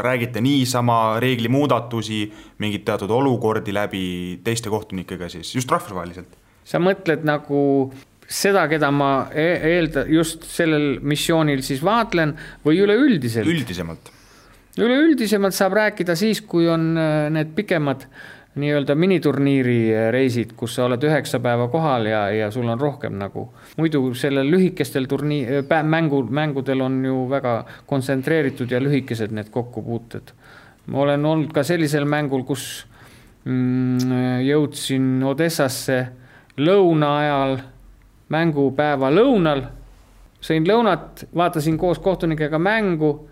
räägite niisama reegli muudatusi, mingid teatud olukordi läbi teiste kohtunikega siis, just rahvusvaheliselt? Sa mõtled nagu seda, keda ma just sellel missioonil siis vaatlen või üleüldiselt? Üldisemalt. Üleüldisemalt saab rääkida siis, kui on need pikemad nii-öelda miniturniiri reisid, kus sa oled 9 päeva kohal ja sul on rohkem nagu. Muidu sellel lühikestel mängudel on ju väga kontsentreeritud ja lühikesed need kokkupuuted. Ma olen olnud ka sellisel mängul, kus jõudsin Odessasse lõuna ajal, mängupäeva lõunal, sõin lõunat, vaatasin koos kohtunikega mängu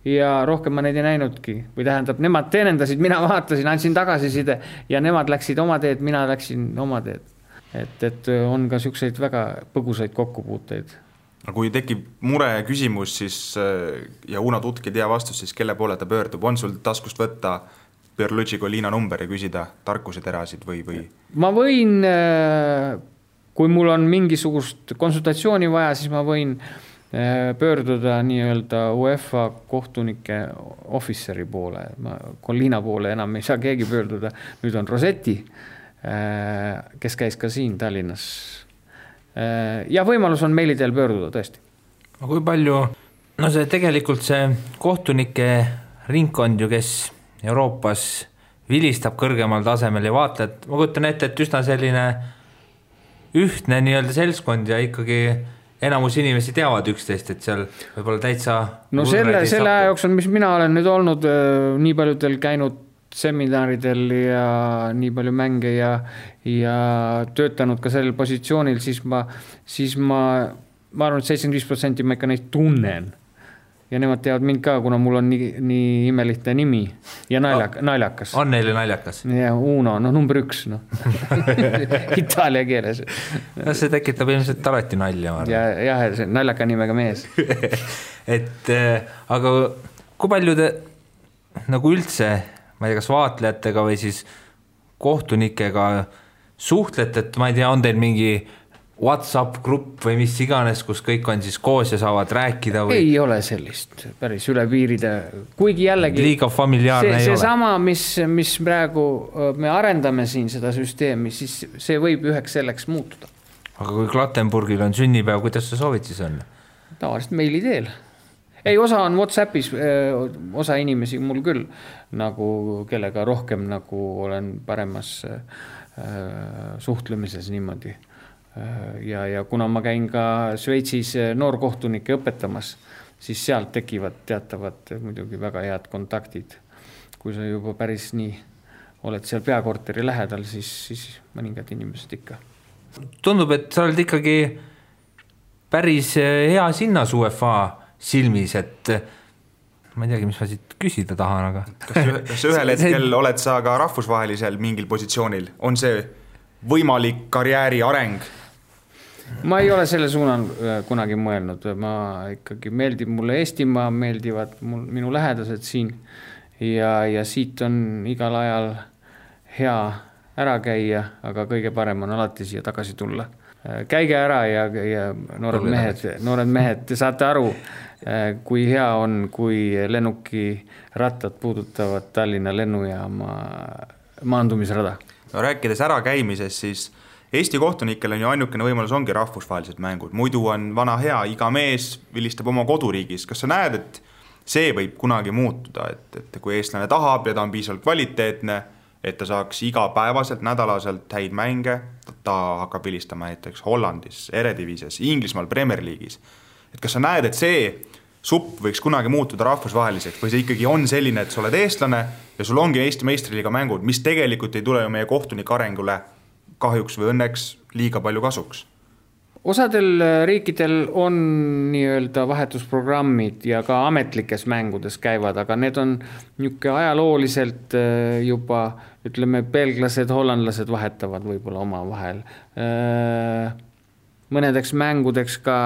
ja rohkem ma neid ei näinudki. Või tähendab, nemad teenendasid, mina vaatasin, andsin tagasiside ja nemad läksid oma teed, mina läksin oma teed. Et on ka selliseid väga põgusaid kokkupuuteid. Kui tekib mure küsimus siis, ja Uno Tutk ei tea vastust, siis kelle poole ta pöördub? On sul taskust võtta Pierluigi Collina number ja küsida tarkuseterasid või? Ma võin, kui mul on mingisugust konsultatsiooni vaja, siis ma võin pöörduda nii-öelda UEFA kohtunike officeri poole. Collina poole enam ei saa keegi pöörduda. Nüüd on Rosetti, kes käis ka siin Tallinnas. Ja võimalus on meili teel pöörduda tõesti. Kui palju, no see tegelikult see kohtunike ringkond ju, kes Euroopas vilistab kõrgemal tasemel ja vaatled, ma kujutan ette, et üsna selline ühtne nii-öelda seltskond ja ikkagi enamus inimesi teavad üksteist, et seal võib-olla täitsa... No selle aja jooksul, mis mina olen nüüd olnud nii paljudel käinud seminaridel ja nii palju mänge ja töötanud ka sellel positsioonil, siis ma arvan, et 75% ma ikka neid tunnen. Ja nemad teavad mind ka, kuna mul on nii imelihte nimi ja naljakas. On neile naljakas? Ja Uno, number 1, Itaalia keeles. No see tekitab ilmselt alati nalja. Ja see naljaka nimega mees. Aga kui palju te nagu üldse, ma ei tea, kas vaatlejatega või siis kohtunikega suhtlete, et ma ei tea, on teil mingi WhatsApp grupp või mis iganes, kus kõik on siis koos ja saavad rääkida või? Ei ole sellist päris üle piiride, kuigi jällegi liiga familiaarne ei ole. See sama, mis praegu me arendame siin seda süsteemi, siis see võib üheks selleks muutuda. Aga kui Klattenburgil on sünnipäev, kuidas sa soovid siis on? Tavaliselt meili teel. Ei, osa on WhatsAppis, osa inimesi mul küll, nagu kellega rohkem nagu olen paremas suhtlemises niimoodi. Ja kuna ma käin ka Šveitsis noorkohtunike õpetamas, siis sealt tekivad teatavad muidugi väga head kontaktid. Kui sa juba päris nii oled seal peakorteri lähedal, siis mõningad inimesed ikka. Tundub, et sa oled ikkagi päris hea sinnas UEFA silmis, et ma ei teagi, mis ma siit küsida tahan, aga... Kas ühel hetkel oled sa ka rahvusvahelisel mingil positsioonil? On see võimalik karjääri areng? Ma ei ole selle suunan kunagi mõelnud. Ma ikkagi meeldib mulle Eestimaa, meeldivad minu lähedased siin ja siit on igal ajal hea ära käia, aga kõige parem on alati siia tagasi tulla. Käige ära ja noored mehed, te saate aru, kui hea on, kui lennuki rattad puudutavad Tallinna lennujaama maandumisrada. No, rääkides ära käimises, siis Eesti kohtunikel on ju ainukene võimalus ongi rahvusvahelised mängud. Muidu on vana hea, iga mees vilistab oma koduriigis. Kas sa näed, et see võib kunagi muutuda, et kui eestlane tahab ja ta on piisavalt kvaliteetne, et ta saaks igapäevaselt, nädalaselt häid mänge, ta hakkab vilistama näiteks Hollandis, Eredivises, Inglismaal, Premier League'is. Et kas sa näed, et see supp võiks kunagi muutuda rahvusvaheliseks või see ikkagi on selline, et sa oled eestlane ja sul ongi Eesti meistriliiga mängud, mis tegelikult ei tule ju meie kohtunike arengule kahjuks või õnneks liiga palju kasuks? Osadel riikidel on nii-öelda vahetusprogrammid ja ka ametlikes mängudes käivad, aga need on niisugune ajalooliselt juba, ütleme, belglased, hollandlased vahetavad võib-olla oma vahel. Mõnedeks mängudeks ka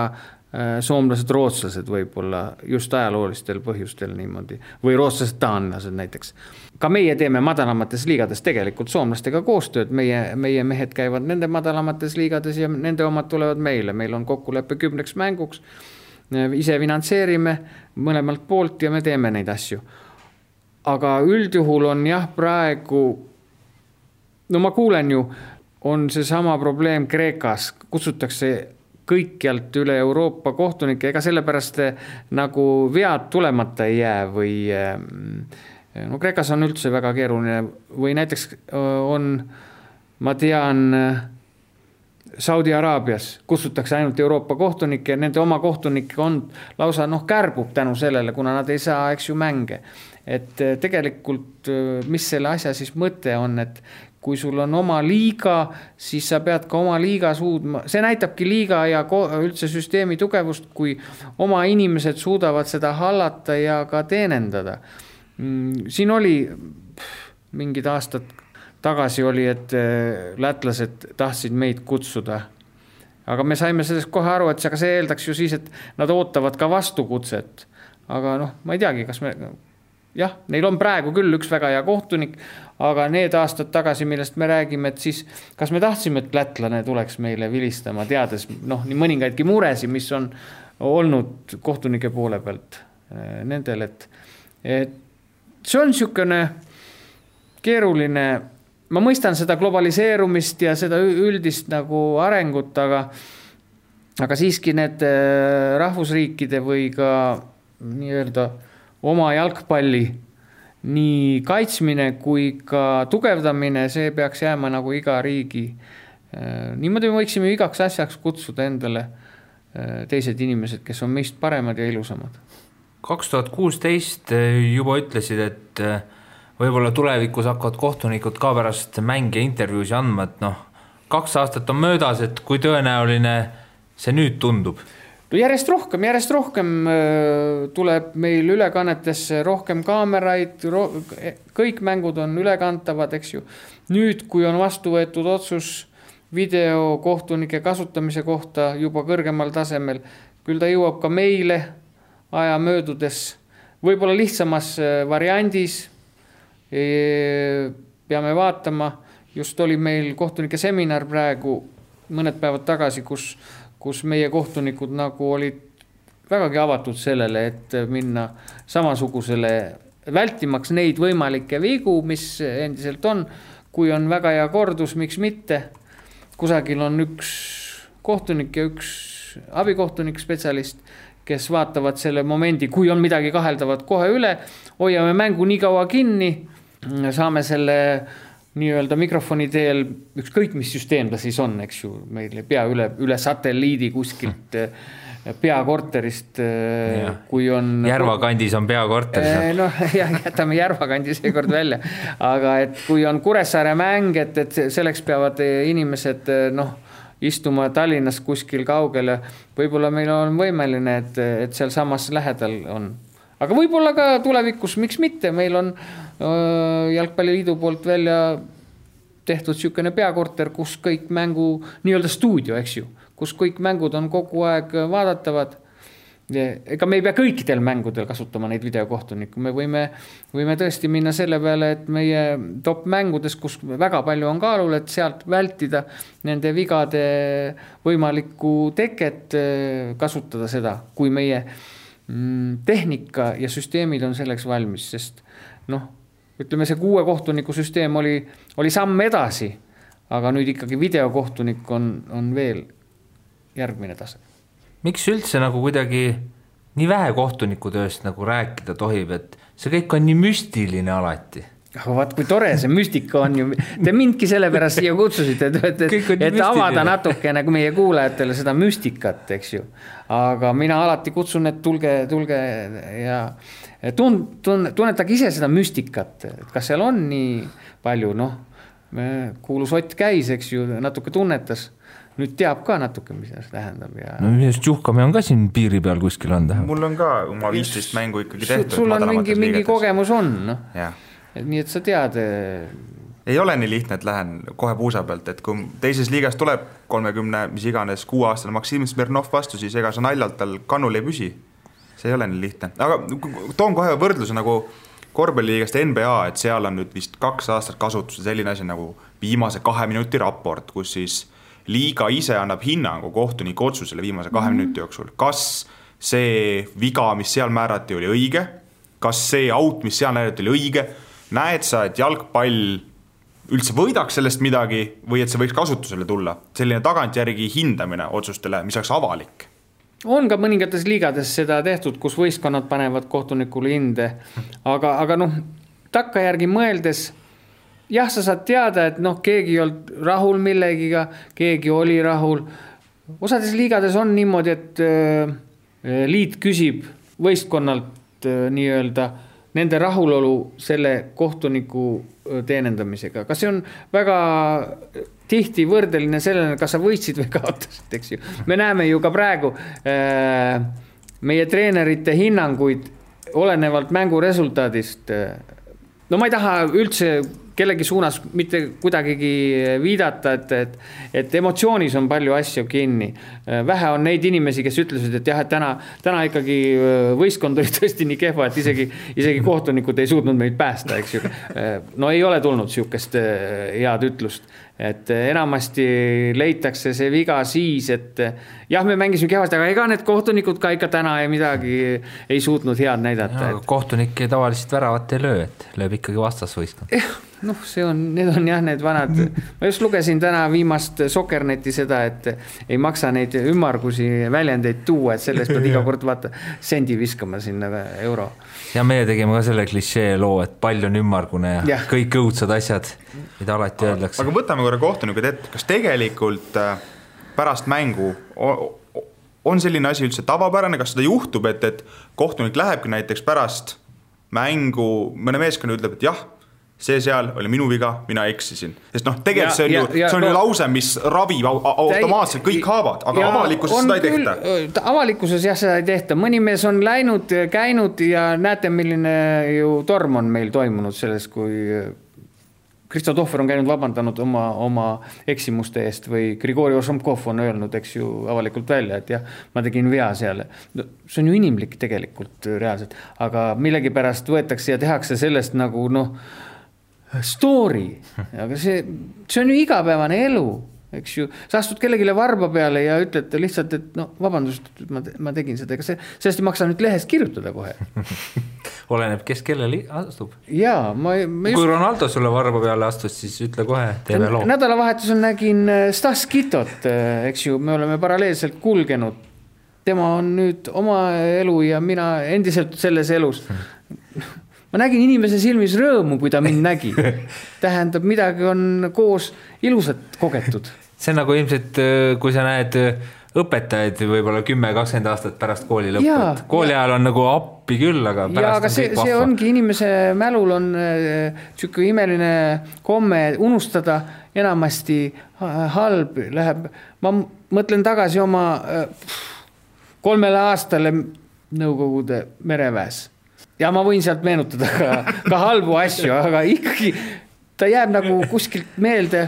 soomlased, rootslased võib-olla just ajaloolistel põhjustel niimoodi või rootslased, taanlased näiteks. Ka meie teeme madalamates liigades tegelikult soomlastega koostööd, meie mehed käivad nende madalamates liigades ja nende omad tulevad meile. Meil on kokkuleppe 10 mänguks, ise finantseerime mõlemalt poolt ja me teeme neid asju. Aga üldjuhul on jah praegu, no ma kuulen ju, on see sama probleem Kreekas, kutsutakse kõikjalt üle Euroopa kohtunikke, ega sellepärast nagu vead tulemata ei jää või no Kreekas on üldse väga keeruline või näiteks on, ma tean, Saudi Araabias kutsutakse ainult Euroopa kohtunikke ja nende oma kohtunikke on lausa kärbub tänu sellele, kuna nad ei saa, eks ju, mänge. Et tegelikult, mis selle asja siis mõte on, et kui sul on oma liiga, siis sa pead ka oma liiga suudma. See näitabki liiga ja üldse süsteemi tugevust, kui oma inimesed suudavad seda hallata ja ka teenendada. Siin oli mingid aastad tagasi oli, et lätlased tahtsid meid kutsuda. Aga me saime sellest kohe aru, et see eeldaks ju siis, et nad ootavad ka vastukutset. Aga ma ei teagi, kas me... Jah, neil on praegu küll üks väga hea kohtunik, aga need aastad tagasi, millest me räägime, et siis kas me tahtsime, et lätlane tuleks meile vilistama, teades nii mõningaidki muresi, mis on olnud kohtunike poole pealt nendel, et see on niisugune keeruline, ma mõistan seda globaliseerumist ja seda üldist nagu arengut, aga siiski need rahvusriikide või ka nii-öelda oma jalgpalli nii kaitsmine kui ka tugevdamine, see peaks jääma nagu iga riigi. Niimoodi me võiksime igaks asjaks kutsuda endale teised inimesed, kes on meist paremad ja ilusamad. 2016 juba ütlesid, et võib-olla tulevikus hakkavad kohtunikud ka pärast mänge intervjuusi andma, et 2 aastat on möödas, et kui tõenäoline see nüüd tundub? Järjest rohkem tuleb meil ülekannetesse rohkem kaameraid, kõik mängud on ülekantavad, eks ju. Nüüd, kui on vastu võetud otsus videokohtunike kasutamise kohta juba kõrgemal tasemel, küll ta jõuab ka meile aja möödudes, võib-olla lihtsamas variandis, peame vaatama, just oli meil kohtunike seminar praegu mõned päevad tagasi, kus meie kohtunikud nagu olid vägagi avatud sellele, et minna samasugusele, vältimaks neid võimalikke vigu, mis endiselt on, kui on väga hea kordus, miks mitte. Kusagil on üks kohtunik ja üks abikohtunik spetsialist, kes vaatavad selle momendi, kui on midagi kaheldavat kohe üle, hoiame mängu nii kaua kinni, saame selle nii-öelda mikrofoni teel, ükskõik mis süsteem ta siis on, eks ju, meil pea üle satelliidi kuskilt peakorterist, kui on... Järvakandis on peakorter. Jätame Järvakandis seekord välja, aga et kui on Kuressaare mäng, et selleks peavad inimesed istuma Tallinnas kuskil kaugele, võib-olla meil on võimeline, et seal samas lähedal on. Aga võib-olla ka tulevikus, miks mitte, meil on Jalgpalliliidu poolt välja tehtud niisugune peakorter, kus kõik mängu, nii-öelda stuudio, eks ju, kus kõik mängud on kogu aeg vaadatavad. Ega me ei pea kõikidel mängudel kasutama neid videokohtuniku, me võime tõesti minna selle peale, et meie top mängudes, kus väga palju on kaalul, et sealt vältida nende vigade võimalikku teket, kasutada seda, kui meie tehnika ja süsteemid on selleks valmis, sest ütleme, see 6 kohtuniku süsteem oli samm edasi, aga nüüd ikkagi videokohtunik on veel järgmine tase. Miks üldse nagu kuidagi nii vähe kohtuniku tööst nagu rääkida tohib, et see kõik on nii müstiline alati? Vaat kui tore see müstika on ju, te mindki selle pärast siia kutsusite, et avada natuke nagu meie kuulajatele seda müstikat, eks ju. Aga mina alati kutsun, et tulge ja tunnetage ise seda müstikat, et kas seal on nii palju, kuulus Ott käis, eks ju, natuke tunnetas, nüüd teab ka natuke, mis see tähendab. Just juhkame on ka siin piiri peal kuskil on tähendab. Mul on ka oma 15 mängu ikkagi tehtud. Sul on mingi kogemus on, Jah. Nii et sa tead. Ei ole nii lihtne, et lähen kohe puusa pealt, et kui teises liigas tuleb 30, mis iganes 6-aastane Maksim Smirnov vastu, siis ega sa naljalt tal kannul ei püsi. See ei ole nii lihtne. Aga toon kohe võrdluse nagu korvpalliliigast NBA, et seal on nüüd vist 2 aastat kasutusel selline asi nagu viimase 2 minuti raport, kus siis liiga ise annab hinnangu kohtuniku otsusele viimase 2 minuti jooksul. Kas see viga, mis seal määrati, oli õige? Kas see out, mis seal näidati, oli õige? Näed sa, et jalgpall üldse võidaks sellest midagi või et see võiks kasutusele tulla? Selline tagantjärgi hindamine otsustele, mis oleks avalik. On ka mõningates liigades seda tehtud, kus võistkonnad panevad kohtunikule hinde, aga takkajärgi mõeldes, jah, sa saad teada, et keegi ei olnud rahul millegiga, keegi oli rahul. Osades liigades on niimoodi, et liit küsib võistkonnalt nii-öelda nende rahulolu selle kohtuniku teenendamisega. Kas see on väga tihti võrdeline sellele, kas sa võitsid või kaotasid, eks ju. Me näeme ju ka praegu meie treenerite hinnanguid olenevalt mängu resultaadist. No ma ei taha üldse kellegi suunas mitte kuidagigi viidata, et emotsioonis on palju asju kinni. Vähe on neid inimesi, kes ütlesid, et jah, et täna ikkagi võistkond oli tõesti nii kehva, et isegi kohtunikud ei suutnud meid päästa, eks ju. No ei ole tulnud siukest head ütlust, et enamasti leitakse see viga siis, et jah, me mängisime kehvasti, aga ega need kohtunikud ka ikka täna midagi ei suutnud head näidata. Kohtunik tavaliselt väravat ei löö, et lööb ikkagi vastasvõistkond. Need on jah, need vanad. Ma just lugesin täna viimast Sokkerneti seda, et ei maksa neid ümmargusi väljendeid tuua, et sellest pead iga kord vaata sendi viskama sinna euro. Ja meie tegime ka selle klišee loo, et pall on ümmargune ja kõik õudsad asjad, mida alati öeldakse. Aga võtame korra kohtunikud ette, kas tegelikult pärast mängu on selline asi üldse tavapärane, kas seda juhtub, et kohtunik lähebki näiteks pärast mängu, mõne meeskonna ütleb, et jah, see seal oli minu viga, mina eksisin. Sest tegelikult see on ju lause, mis ravib automaatselt kõik haavad, aga avalikkuses seda ei tehta. Avalikkuses jah, seda ei tehta. Mõni mees on läinud, käinud ja näete, milline ju torm on meil toimunud selles, kui Kristo Tohver on käinud vabandanud oma eksimuste eest või Grigori Ošomkov on öelnud, eks ju, avalikult välja, et jah, ma tegin vea seal. See on ju inimlik tegelikult reaalselt, aga millegipärast võetakse ja tehakse sellest nagu story, aga see on ju igapäevane elu, eks ju. Sa astud kellegile varba peale ja ütled lihtsalt, et vabandust, ma tegin seda, ega sellest ei maksa nüüd lehest kirjutada kohe. Oleneb, kes kellele astub. Jaa, kui Ronaldo sulle varba peale astus, siis ütle kohe, teeme loo. Nädalavahetusel nägin Stas Kitot, eks ju, me oleme paralleelselt kulgenud. Tema on nüüd oma elu ja mina endiselt selles elus. Ma nägin inimese silmis rõõmu, kui ta mind nägi. Tähendab, midagi on koos ilusat kogetud. See on nagu ilmselt, kui sa näed õpetajaid võib-olla 10-20 aastat pärast kooli lõppu. Kooli ajal on nagu appi küll, aga pärast on kõik vahva. See ongi inimese mälul on tšükku imeline komme unustada, enamasti halb läheb. Ma mõtlen tagasi oma 3 aastale Nõukogude mereväes. Ja ma võin sealt meenutada ka halbu asju, aga ikkagi ta jääb nagu kuskilt meelde,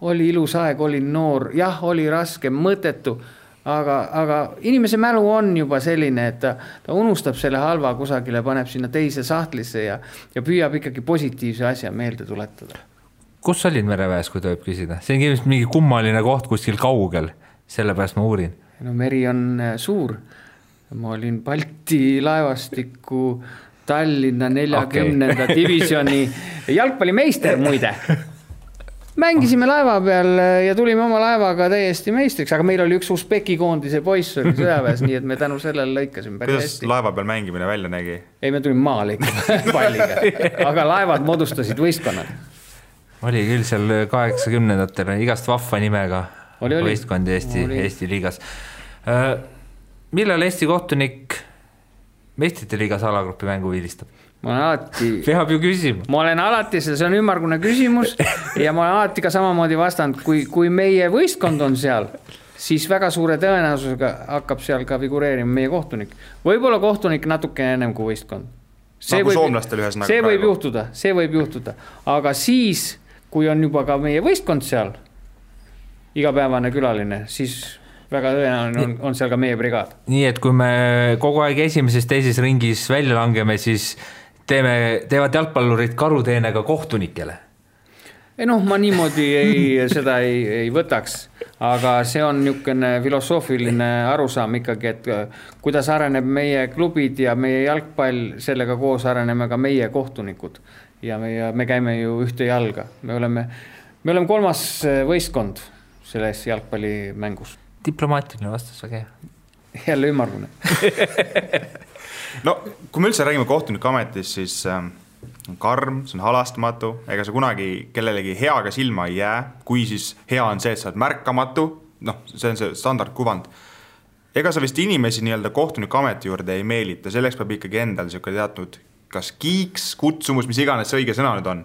oli ilus aeg, oli noor, jah, oli raske, mõttetu, aga inimese mälu on juba selline, et ta unustab selle halva kusagile, paneb sinna teise sahtlisse ja püüab ikkagi positiivse asja meelde tuletada. Kus olid mereväes, kui tohib küsida? See on mingi kummaline koht kuskil kaugel, sellepärast ma uurin. Meri on suur. Ma olin Balti laevastiku Tallinna 40. divisjoni jalgpallimeister muide. Mängisime laeva peal ja tulime oma laevaga täiesti meistriks, aga meil oli üks Usbeki koondise poiss oli sõjaväes, nii et me tänu sellele lõikasime päris hästi. Kuidas laeva peal mängimine välja nägi? Ei, me tulime maale ikka palliga, aga laevad moodustasid võistkonnad. Oli küll seal 80-ndatele igast vahva nimega võistkondi Eesti liigas. Millal Eesti kohtunik meistrite liigas alagrupi mängu viilistab? Peab ju küsima. Ma olen alati, see on ümmargune küsimus ja ma olen alati ka samamoodi vastanud, kui meie võistkond on seal, siis väga suure tõenäosusega hakkab seal ka figureerima meie kohtunik. Võib-olla kohtunik natuke ennem kui võistkond. See võib juhtuda. Aga siis, kui on juba ka meie võistkond seal, igapäevane külaline, siis väga tõenäoline on seal ka meie brigaad. Nii, et kui me kogu aeg teises ringis välja langeme, siis teevad jalgpallurid karuteenega kohtunikele? Ma niimoodi seda ei võtaks, aga see on niisugune filosoofiline arusaam ikkagi, et kuidas areneb meie klubid ja meie jalgpall, sellega koos areneme ka meie kohtunikud ja me käime ju ühte jalga. Me oleme 3. võistkond selles jalgpallimängus. Diplomaatiline vastus, väga hea. Jälle ümmargune. No, kui me üldse räägime kohtuniku ametis, siis on karm, see on halastmatu, ega sa kunagi kellelegi heaga silma ei jää, kui siis hea on see, et sa oled märkamatu, noh, see on see standardkuvand. Ega sa vist inimesi nii-öelda kohtuniku ameti juurde ei meelita, selleks peab ikkagi endal teatud kas kiiks, kutsumus, mis iganes see õige sõna nüüd on,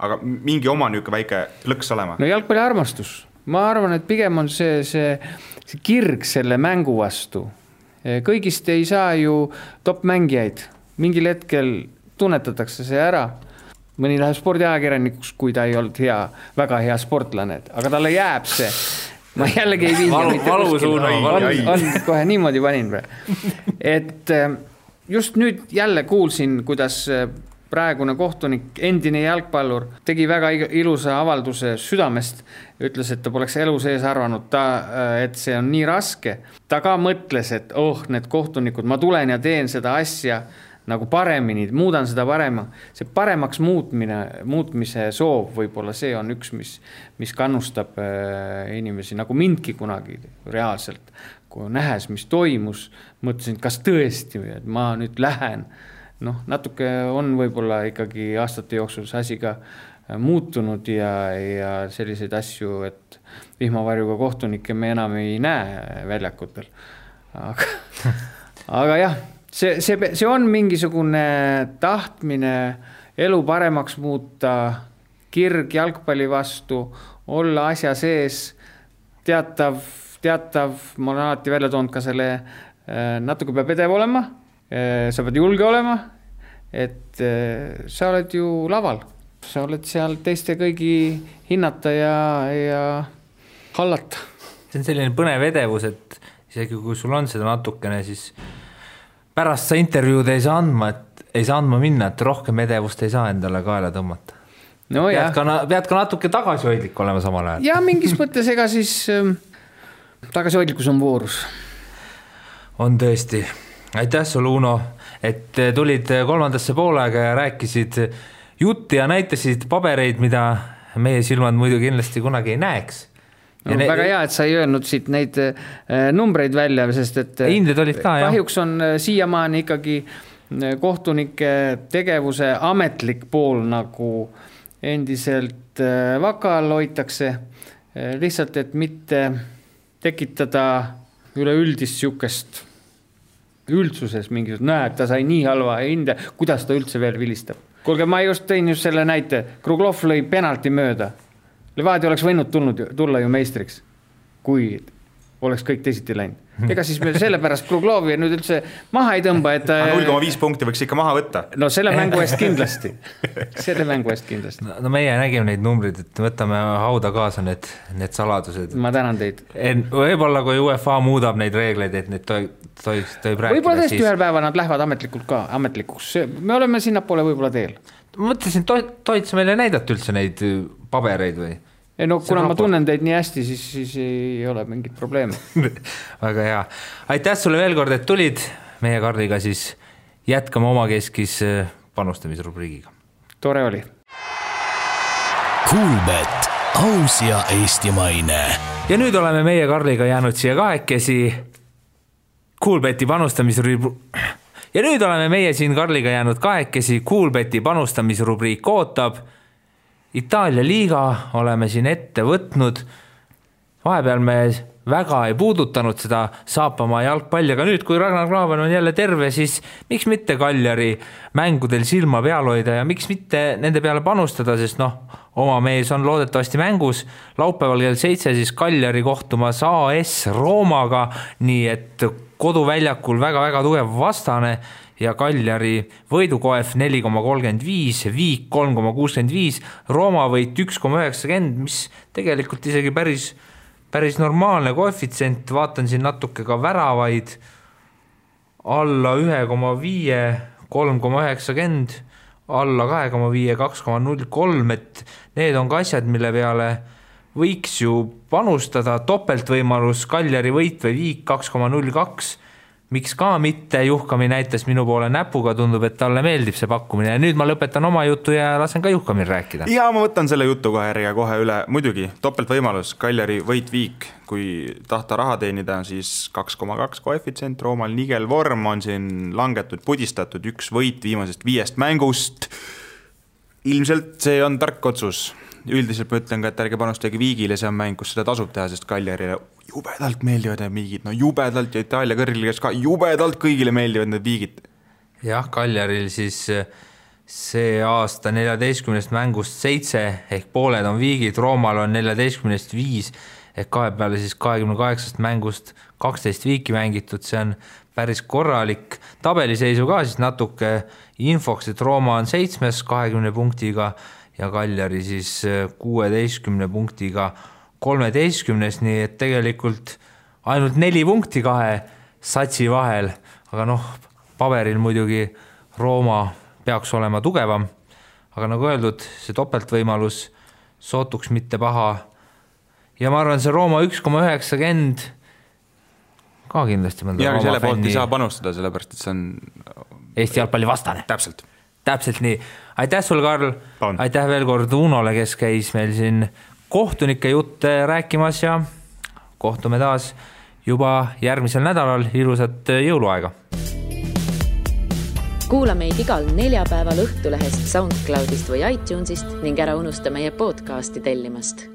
aga mingi oma niisugune väike plõks olema. No jalgpalli armastus. Ma arvan, et pigem on see kirg selle mängu vastu. Kõigist ei saa ju top-mängijaid. Mingil hetkel tunnetatakse see ära. Mõni läheb spordiajakirjanikuks, kui ta ei olnud väga hea sportlane, aga talle jääb see. Ma jällegi ei viiga. Valusuuna. On kohe niimoodi panin. Et just nüüd jälle kuulsin, kuidas praegune kohtunik, endine jalgpallur, tegi väga ilusa avalduse südamest, ütles, et ta poleks elu sees arvanud, et see on nii raske. Ta ka mõtles, et need kohtunikud, ma tulen ja teen seda asja nagu paremini, muudan seda parema. See paremaks muutmise soov võib-olla see on üks, mis kannustab inimesi, nagu mindki kunagi reaalselt. Kui nähes, mis toimus, mõtlesin, kas tõesti, et ma nüüd lähen. Natuke on võib-olla ikkagi aastate jooksul see asi ka muutunud ja selliseid asju, et vihmavarjuga kohtunikke me enam ei näe väljakutel. Aga jah, see on mingisugune tahtmine elu paremaks muuta, kirg jalgpalli vastu, olla asja sees, teatav, ma olen alati välja toonud ka selle, natuke peab edev olema, sa pead julge olema, et sa oled ju laval, sa oled seal teiste kõigi hinnata ja hallata. See on selline põnev edevus, et isegi kui sul on seda natukene, siis pärast sa intervjuud ei saa andma minna, et rohkem edevust ei saa endale kaela tõmmata. No pead ka natuke tagasihoidlik olema samal ajal. Ja mingis mõttes ega siis tagasihoidlikkus on voorus. On tõesti. Aitäh sulle, Uno, et tulid kolmandasse poolega ja rääkisid jutti ja näitasid pabereid, mida meie silmad muidu kindlasti kunagi ei näeks. Väga hea, et sa ei öelnud siit neid numbreid välja, sest et hinded olid ka, kahjuks on siiamaani ikkagi kohtunike tegevuse ametlik pool nagu endiselt vakal hoitakse, lihtsalt, et mitte tekitada üleüldist siukest üldsuses mingisugust, näed, ta sai nii halva hinde, kuidas ta üldse veel vilistab. Kuulge, ma just tõin just selle näite, Kruglov lõi penalti mööda. Levadia oleks võinud tulla ju meistriks, kui oleks kõik teisiti läinud. Ega siis me sellepärast Kruglovi nüüd üldse maha ei tõmba, et 0,5 punkti võiks ikka maha võtta. No selle mängu eest kindlasti. No meie nägime neid numbrid, et võtame hauda kaasa need saladused. Ma tänan teid. Võib-olla kui UEFA muudab neid reegleid, et need tohib rääkida. Võib-olla tõesti ühel päeva nad lähevad ametlikuks. Me oleme sinnapoole võib-olla teel. Ma mõtlesin, tohid sa meile näidata üldse neid pabereid või? No kuna ma tunnen teid nii hästi, siis ei ole mingit probleemi. Väga hea. Aitäh sulle veel kord, et tulid meie Karliga, siis jätkame omakeskis panustamisrubriigiga. Tore oli. Kuulbet, aus ja eestimaine. Ja nüüd oleme meie Karliga jäänud siia kahekesi Kuulbeti panustamisrubriik. Ja nüüd oleme meie siin Karliga jäänud kahekesi Kuulbeti panustamisrubriik ootab. Itaalia liiga oleme siin ette võtnud. Vahepeal me väga ei puudutanud seda Saapamaa jalgpalli, aga nüüd, kui Ragnar Klavan on jälle terve, siis miks mitte Kaljari mängudel silma peal hoida ja miks mitte nende peale panustada, sest oma mees on loodetavasti mängus. Laupäeval kell 7 siis Kaljari kohtumas AS Roomaga, nii et koduväljakul väga-väga tugev vastane ja Kaljari võidukoef 4,35, Viik 3,65, Rooma võit 1,90, mis tegelikult isegi päris normaalne koefitsient, vaatan siin natuke ka väravaid, alla 1,5, 3,90, alla 2,5, 2,03, et need on ka asjad, mille peale võiks ju panustada, topeltvõimalus Kaljari võit või Viik 2,02, miks ka mitte, Juhkami näitas minu poole näpuga, tundub, et talle meeldib see pakkumine ja nüüd ma lõpetan oma jutu ja lasen ka Juhkamil rääkida. Ja ma võtan selle jutu kohe üle, muidugi topeltvõimalus, Kaljari võit Viik, kui tahta raha teenida, siis 2,2 koefitsient, Roomal nigel vorm on siin langetud, pudistatud, üks võit viimasest 5 mängust, Ilmselt see on tark otsus. Üldiselt ma ütlen ka, et ärge panustage Viigile, see on mäng, kus seda tasub teha, sest Cagliarile jubedalt meeldivad need Viigid, no jubedalt ja Itaalia kõrgligas ka jubedalt kõigile meeldivad need Viigid. Jah, Cagliaril siis see aasta 14 mängust 7 ehk pooled on Viigid, Roomal on 14 5 ehk kahe peale siis 28 mängust 12 viiki mängitud, see on päris korralik. Tabeliseisu ka siis natuke infoks, et Rooma on 7 20 punktiga ja Cagliari siis 16 punktiga 13, nii et tegelikult ainult 4 punkti kahe satsi vahel, aga paberil muidugi Rooma peaks olema tugevam, aga nagu öeldud, see topeltvõimalus sootuks mitte paha ja ma arvan, see Rooma 1,90 ka kindlasti mõnda ja Rooma selle poolt fänni ei saa panustada, sellepärast, et see on Eesti jalgpalli vastane. Täpselt nii. Aitäh sul, Karl. Aitäh veel kord Unole, kes käis meil siin kohtunike jutte rääkimas ja kohtume taas juba järgmisel nädalal. Ilusat jõuluaega. Kuula meid igal neljapäeval Õhtulehest, SoundCloudist või iTunesist ning ära unusta meie podcasti tellimast.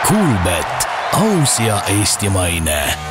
Kuulbet, aus ja eestimaine.